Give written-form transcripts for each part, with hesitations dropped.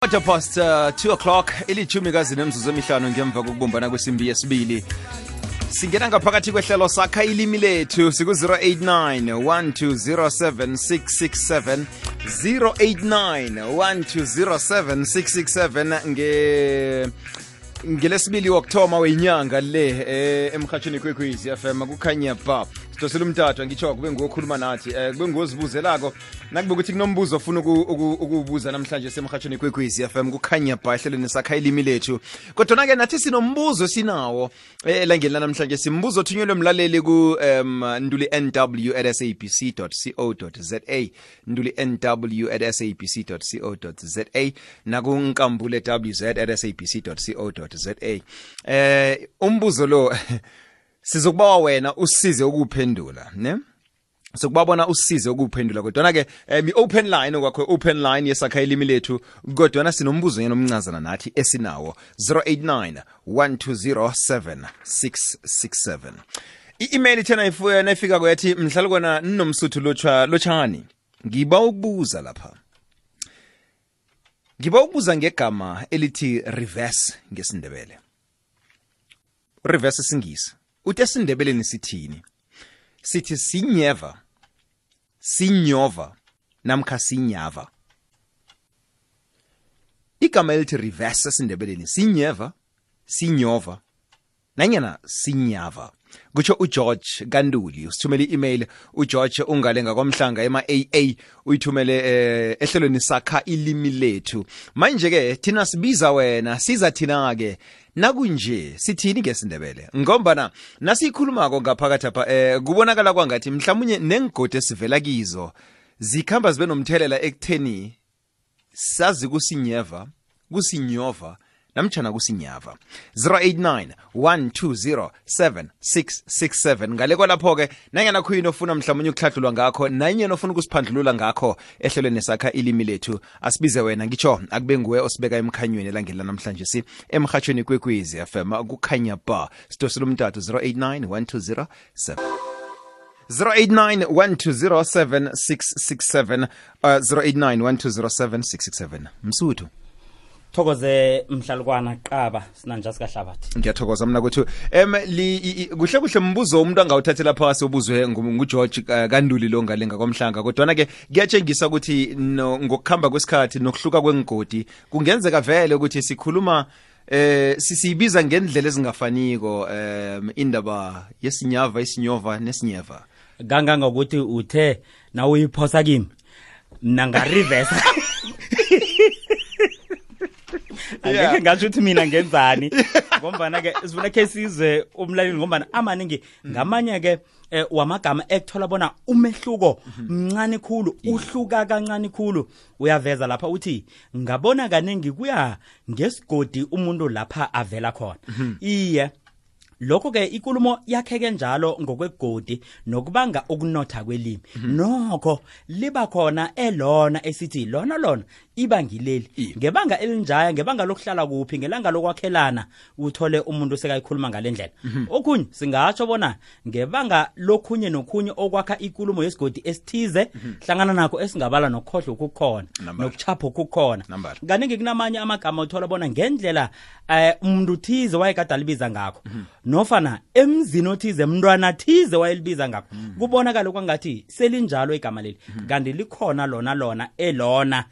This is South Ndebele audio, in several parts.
Past 2 o'clock ilithumi kazi nemzuzu emihlanu ngemva kokubumbana kwesimbi yesibili. Singena ngaphakathi kwehlelo sakha ilimi lethu siku 0891207667 0891207667 ngelesibili okthoma wenyanga le emkhatshweni kwekwezi FM kukhanya ba sidosela umtathu ngitsho kube ngokhuluma nathi kube ngozibuzelako nakube ukuthi kunombuzo ofuna ukubuza namhlanje semkhatshweni kwekwezi FM kukhanya ba ehlelweni sakha ilimi lethu kodwa ke nathi sinombuzo sinawo elangeni namhlanje simbuzo othunyelwe umlaleli ku nduli nw@sabc.co.za nduli nw@sabc.co.za nakunkambule wz@sabc.co.za umbuzo lo sizokubawa wena usize ukuphendula ne sokubabona usize ukuphendula kodwa ke open line kwakho open line yesakha ilimi lethu kodwa sinombuzo yenomncazana nathi esinawo 0891207667 i-email thena ifika kwathi mhlalo kona ninomsuthu lotshani ngiba ukubuza lapha ngegama elithi reverse ngesindebele reverse singisi uthi esindebeleni sithini sithi sinyeva sinyova namkha sinyava igama elithi reverse esindebeleni sinyeva sinyova nanyana sinyava kutsho uGeorge Kanduli usithumele i-email uGeorge ungalenga kwamhlanga ema-AA uyithumele ehlelweni sakha ilimi lethu manje ke thina sibiza wena siza thina ke nakunje sithini ngesindebele ngombana nasikhulumako ngaphakathi apha kubonakala kwangathi mhlawumnye nengigodi esivela kizo zikhamba zibe nomthelela ekutheni sazi kusinyeva kusinyova namtjana kusinyava 0891207667 ngale kwalapho ke nanyana khuyini ofuna mhlawumnye ukuhlahlulwa ngakho nanyana ofuna ukusiphandlulula ngakho ehlelweni sakha ilimi lethu asibize wena ngitsho akube nguwe osibeka emkhanyweni elangeni namhlanje si emkhatshweni kwekwezi FM kukhanya ba sidosela umtathu 0891207667 0891207667 0891207667 Msuthu thokoze mhlalukwana qaba sinanja sikahlabathi ngiyathokoza mina kuthi kuhle mbuzo umuntu angawuthathela phasi obuzwe nguGeorge Kanduli lo ngalenga kwamhlanga kodwa ke kuyatshengisa ukuthi ngokukhamba kwesikhathi nokuhluka kwengigodi kungenzeka vele ukuthi sikhuluma sisibiza ngendlela ezingafaniko indaba yesinyava isinyova nesinyeva ganga ukuthi uthe na uyiphosa kimi mina nga reverse angeke ngasho ukuthi mina ngenzani ngombana ke sifuna ke sizwe umlaleli ngombana amaningi ngamanye ke wamagama ekuthola bona umehluko mncane khulu uhluka kancane khulu uyaveza lapha uthi ngabona kaningi kuya ngesigodi umuntu lapha avela khona iye lokho ke ikulumo yakheke njalo ngokwegodi nokubanga ukunotha kwelimi nokho liba khona elona esithi lona iba ngileli ngebanga elinjaya ngebanga lokuhlala kuphi ngelanga lokwakhelana uthole umuntu sekayikhuluma ngalendlela okunye singatsho bona ngebanga lokhunye nokhunye okwakha ikulumo yesigodi esithize hlangana nakho esingabala nokhohlo ukukhona nokuchapha ukukhona kaningi kunamanye amagama uthola bona ngendlela umuntu thize wayekade libiza ngakho nofana emzini othize umntwana thize wayelibiza ngakho kubonakala kwangathi selinjalo igama leli kanti likhona lona elona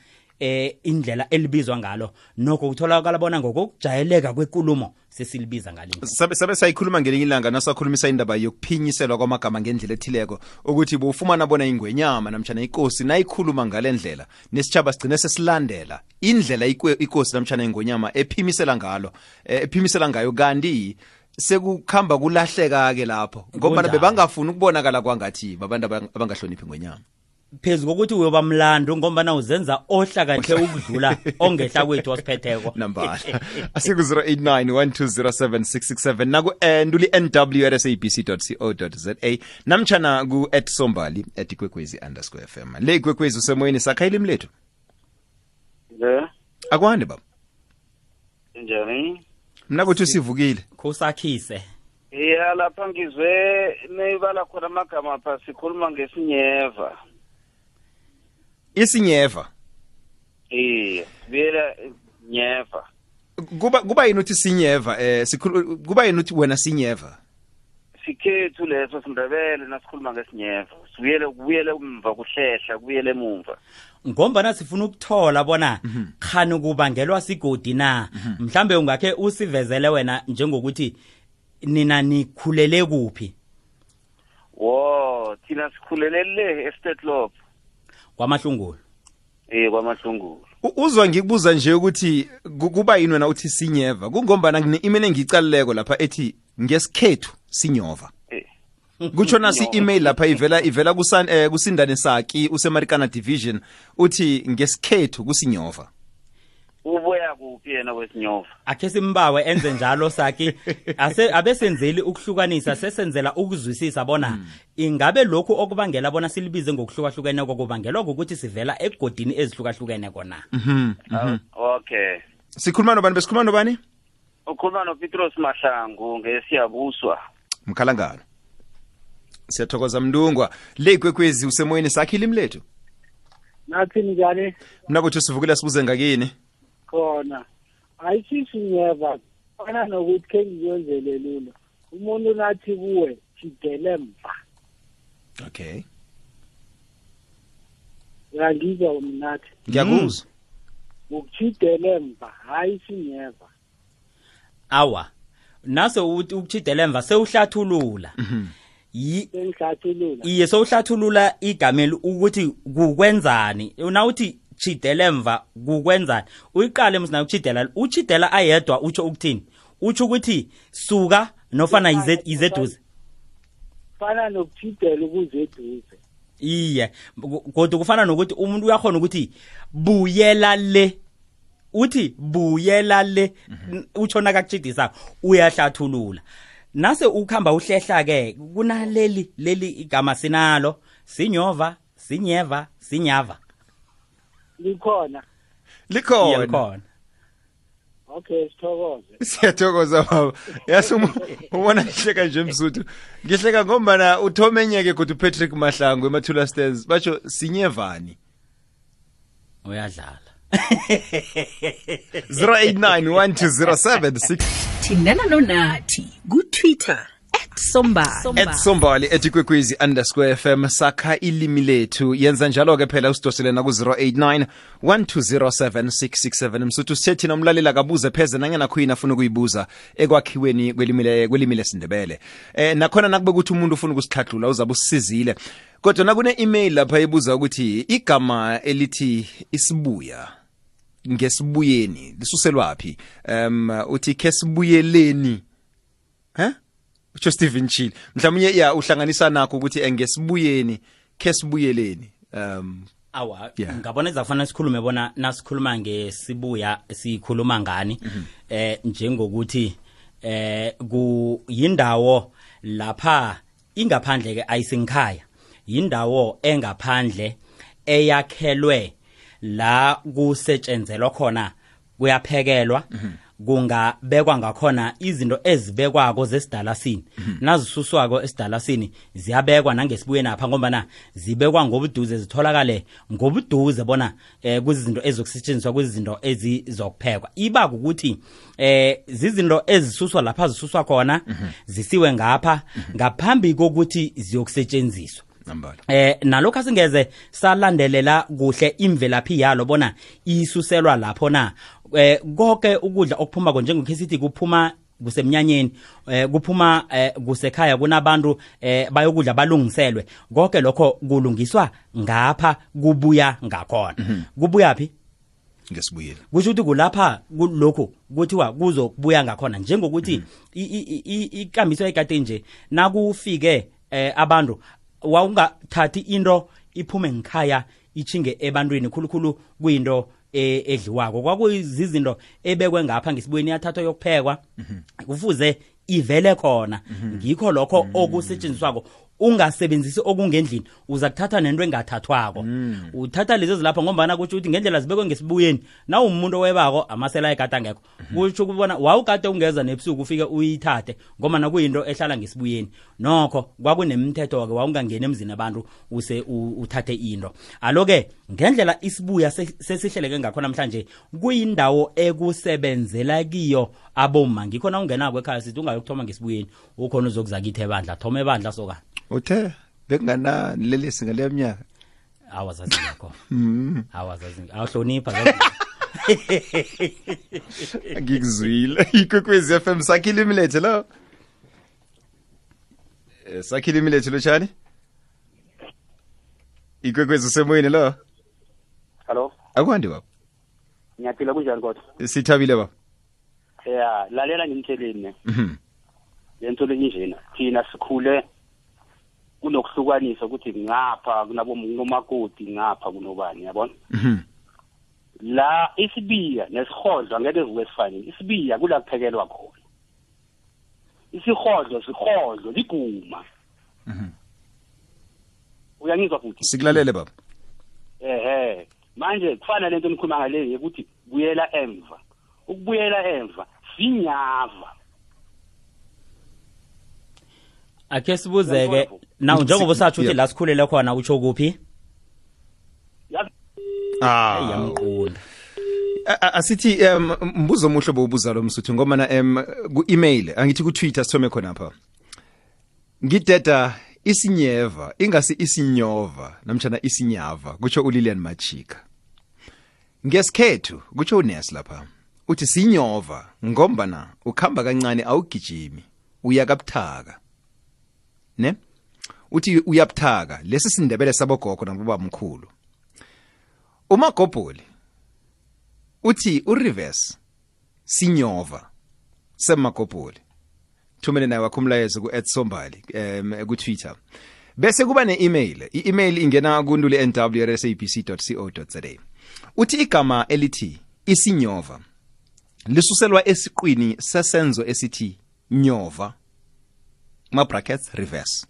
indlela elibizwa ngalo nokho kutholakala bona ngokujayeleka kwekulumo sesilibiza ngalinto sabe sayikhuluma ngelinye ilanga nasakhulumisa indaba yokuphinyiselwa kwamagama ngendlela ethileko ukuthi bufumana bona ingwenyama namtjana inkosi nayikhuluma ngalendlela nesitjhaba sigcine sesilandela indlela inkosi namtjana ingwenyama ephimisela ngayo kanti sekukhamba kulahleka ke lapho ngoba bebangafuni ukubonakala kwangathi babantu abangahloniphi ngwenyama phezu kokuthi uyoba mlando ngombana uzenza ohlakanhle ukudlula ongehla kwethu wasiphetheko nambala asiku 0891207667 naku nduli nw@sabc.co.za namtjana ku @sombali@kwekwezi_fm le kwekwezi usemoyeni sakha ilimi lethu akwande baba njani mina kuthi sivukile kusakhise lapha ngizwe neyibala khona amagama pha sikhuluma ngesinyeva isinyeva bela nyeva. Kuba yini uthi sinyeva kuba yini uthi wena sinyeva? Sikhethu leso siNdebele nasikhuluma ngesinyeva. Kubuyele umva kuhlehla kubuyele emumva. Ngombana sifuna ukuthola bona khani kubangelwa sigodi na. Mhlambe ungakhe usivezele wena njengokuthi nina nikhulele kuphi? Wo, thina sikhulele le estate lob. KwaMahlungulu. KwaMahlungulu. Uzwa ngikubuza nje ukuthi kuba yini wena uthi sinyeva kungombana ngine-email engicalileko lapha ethi ngesikhethu sinyova. Kutsho nasi email lapha ivela kusindane Saki useMarikana division uthi ngesikhethu kusinyova. Uboya kuphi yena wesinyova? Akhe simbawe enze njalo Saki abesenzeli ukuhlukanisa sesenzela ukuzwisisa bona ingabe lokhu okubangela bona silibize ngokuhlukahlukene kokubangelwa ukuthi sivela egodini ezihlukahlukene kona. Okay. Sikhuluma nobani besikhuluma nobani? Ukhuluma noPetros Mahlangu ngeSiyabuswa. Mkhalangano. Siyathokoza Mndungwa. Le kwekwezi usemoyeni Sakhi ilimi lethu. Nathi njani? Mina botho sivukela sibuze ngakini. Khona. Ayisisi nyeva. Fana nokuthi ke ngiyenzele lula. Umuntu nathi kuwe jidele mva. Okay. Ngizwa umnathi. Ngiyakuzwa. Ukujidele mva hayi sinyeva. Awa. Naso ukuchidela emva sewuhlathulula. Sengihlathulula. Iye sewuhlathulula igameli ukuthi kukwenzani. Nawuthi chidela emva kukwenzani. Uyiqale msina ukuchidela. Uchidela ayedwa utsho ukuthini? Utsho ukuthi suka nofana izeduze. Fana nokuchidela ukuzeduze. Iye. Kodwa kufana nokuthi umuntu uyakhona ukuthi buyela le. Uthi buyela le utshona kakuchidisa uyahlathulula. Nase ukhamba uhlehla ke kunaleli igama sinalo sinyova sinyeva sinyava. Likhona. Likhona. Okay, sithokoze. Siyathokoza baba. Yazi ubona ngihleka nje Msuthu. Ngihleka ngombana uthomenyeke kodwa uPatrick Mahlangu eMathula Stairs batsho sinyevani. Uyadlala. 08912076 Thindana nonathi ku-Twitter @sombali @kwekwezi_FM sakha ilimi lethu yenza njalo ke phela usidoselena ku 0891207667 Msuthu sithi nomlalela kabuze pheze nangena khuyina afuna ukuyibuza ekwakhiweni kwelimi lesindebele nakhona nakube ukuthi umuntu ufuna ukusihlahlula uzabe usizile kodwa nakune email lapha ebuza ukuthi igama elithi isibuya ngesibuyeni lisuselwapi uthi kesibuyeleni utsho Stephen Chill mhlawumnye uhlanganisa nakho ukuthi ngesibuyeni kesibuyeleni awa ngabona ezafana sikhulume bona nasikhuluma ngesibuya sikhuluma ngani njengokuthi kuyindawo lapha ingaphandle ke ayisinkhaya yindawo engaphandle eyakhelwe la kusetshenzelwa khona kuyaphekelwa kungabekwa ngakhona izinto ezibekwako zesidalasini nazisuswako esidalasini ziyabekwa nangesibuyeni apha ngoba zibekwa ngobuduze zitholakale ngobuduze bona kuzizinto ezokusetshenziswa kuzizinto ezizokuphekwa iba ukuthi zizinto ezisuswa lapha zisuswa khona zisiwe ngapha ngaphambi kokuthi ziyokusetshenziswa nalokho asingeze salandelela kuhle imvelaphi yalo bona isuselwa lapho na konke ukudla okuphuma njengokhesithi kuphuma kusemnyanyeni kuphuma kusekhaya kunabantu bayokudla balungiselwe konke lokho kulungiswa ngapha kubuya ngakhona kubuya phi ngesibuyeni kusho ukuthi kulapha kulokho kuthiwa kuzokubuya ngakhona njengokuthi ikambiso ekade nje nakufike abantu wawungathathi into iphume ngikhaya ichinge ebantwini khulukhulu kuyinto edliwako kwakuyizinto ebekwe ngapha ngesibuyeni yathathwa yokuphekwa kufuze ivele khona ngikho lokho okusetshenziswako ungasebenzisi okungendlini uza kuthatha nento engathathwako uthatha lezi zilapha ngombana kuthi uthi ngendlela zibekwe ngesibuyeni na umuntu webako amasela egada ngekho kuthi kubona wawukade ungeza nebusuku ufike uyithathe ngoba kuyinto ehlala ngesibuyeni nokho kwakunemithetho ke wawungangena emzini abantu use uthathe into aloke ngendlela isibuya sesihleleke ngakho namhlanje kuyindawo ekusebenzela kiyo aboma ngikhona ungenako ekhaya sithi ungayokuthoma ngesibuyeni ukhona uzokuzakithe ebandla thoma ebandla soka uthe bekungana lelisi ngale minyaka awazazi yakho awazazi awuhlonipha ngikuzwile ikwekwezi FM sakhile imilethe lo sakhile imilethe lo chani ikwekwezi semoyeni lo Hello akwandi baba ngiyaphila kunjani kodwa sithabile baba yeah lalela ngimtheleni lento lenjena thina sikhule kunokuhlukanisa ukuthi ngapha kunabo nomakoti ngapha kunobani yabona la isibiya nesihodlo angeke zikwesifane isibiya kula kuphekelwa khona isihodlo liguma uyangizwa futhi sikulalele baba manje kufana lento enikhuluma ngale ukuthi buyela emva ukubuyela emva sinyava ake sibuzeke naw njengoba usathi uthi la sikhulele khona utsho kuphi yamqunda asithi mbuzo omuhle bobuza lo msuthu ngoba na ku-email angithi ku-Twitter sithome khona apha ngideda isinyeva ingasi isinyova namtjana isinyava kutsho uLilian Machika ngesikhethu kutsho uNes lapha uthi sinyova ngombana ukhamba kancane awugijimi uyakabuthaka ne uthi uyabuthaka lesi sindebele sabogogo nababa mkhulu uMagobholi uthi ureverse sinyova seMagobholi thumele naye wakho umlayezo ku@sombali ku-Twitter bese kuba ne-email i-email ingena kunduli@nwrsabc.co.za uthi igama elithi isinyova lisuselwa esiqwini sesenzo esithi nyova ma brackets reverse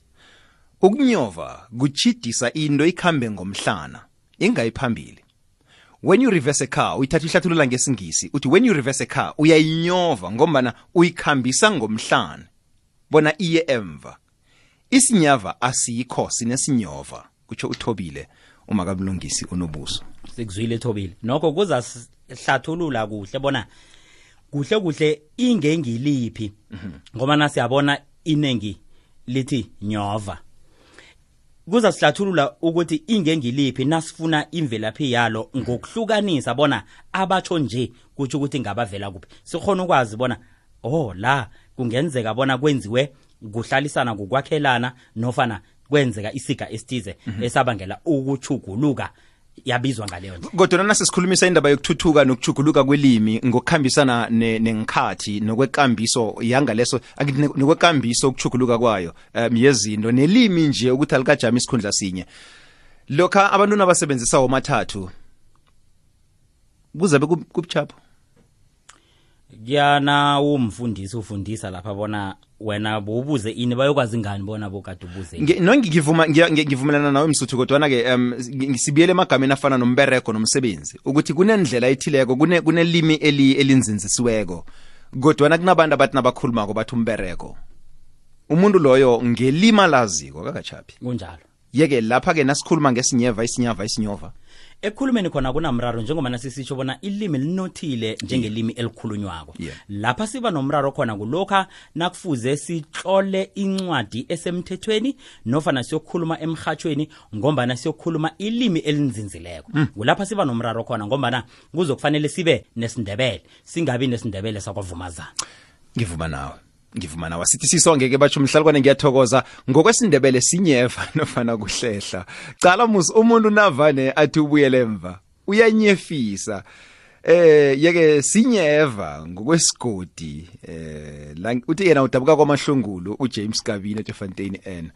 ukunyova kuchidisa into ikhambe ngomhlana ingayiphambili when you reverse a car uyithatha ihlathulula ngesingisi uthi when you reverse a car uyayinyova ngombana uyikhambisa ngomhlana bona iye emva isinyava asikho sinesinyova kutsho uThobile umakabulungisi unobuso sikuzwile Thobile nokho kuza hlathulula kuhle bona kuhle ingengiliphi ngoba nasiyabona inengi lithi nyova kuza sihlathulula ukuthi ingengiliphi nasifuna imvelaphi yalo ngokuhlukanisa bona abatsho nje kuthi ukuthi ngabavela kuphi sikhona ukwazi bona la kungenzeka bona kwenziwe kuhlalisana kukwakhelana nofana kwenzeka isiga esithize esabangela ukuchuguluka yabizwa ngaleyo nje kodwa nana sikhulumisa indaba yokuthuthuka nokuchuguluka kwelimi ngokukhambisana nengikhathi nokwekambiso yangaleso akithi nokwekambiso ukuchuguluka kwayo yezinto nelimi nje ukuthi alikajama isikhundla sinye lokha abantu nabasebenzisa omathathu kuzabe kubuchapho kuyana umfundisi ufundisa lapha bona wena bobuze ini bayokwazi ngani bona bokade ubuze ngivumelana nawe msuthu kodwa ke ngisibiyele emagameni afana nombereko nomsebenzi ukuthi kunendlela ethileko kunelimi elinzinzisiweko kodwa kunabantu abathi nabakhulumako bathi umbereko umuntu loyo ngelima laziko kakachaphi kunjalo yeke lapha ke nasikhuluma ngesinyeva isinyova ekhulumeni khona kunamraro njengoba nasisitsho bona ilimi linothile njengelimi elikhulunywako lapha siba nomraro khona kulokha nakufuze sitlole incwadi esemthethweni nofana siyokhuluma emhathweni ngombana siyokhuluma ilimi elinzinzileko kulapha siba nomraro khona ngombana kuzokufanele sibe nesindebele singabi nesindebele sakwavumazana ngivuma nawe sithi sisongeke batsho umhlalukwane ngiyathokoza ngokwesindebele sinyeva nofana kuhlehla cala umuntu navane athi ubuyele emva uyanyefisa yeke sinyeva ngokwesigodi uthi yena udabuka kwamahlungulu uJames Kabine eFontaine N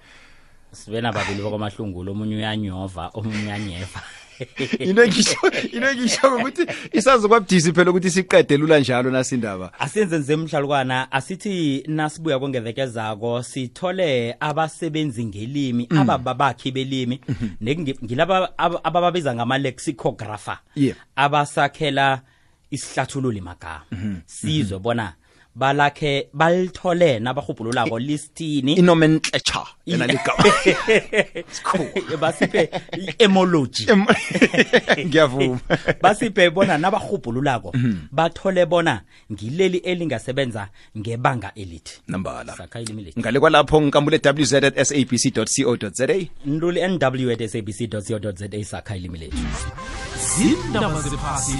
sibena babili bakwamahlungulu omunye uyanyova omunye uyanyeva into ngisho ukuthi isazokwabudisi phela ukuthi siqede lula njalo nasindaba. Asenze nje emhlalukwana asithi nasibuya kongevekezako sithole abasebenzi ngelimi ababakhi belimi ngilaba abababiza ngama lexicographer abasakhela isihlathululi magama sizwe bona balakhe balithole nabahubhululako listini inomenclature yena ligama basiphe etymology ngiyavuma basiphe bona nabahubhululako bathole bona ngileli elingasebenza ngebanga elithi nambala sakha ilimi ngale kwalapho ngikambule www.sabc.co.za nduli nw@sabc.co.za sakha ilimi lethu zindaba zephasi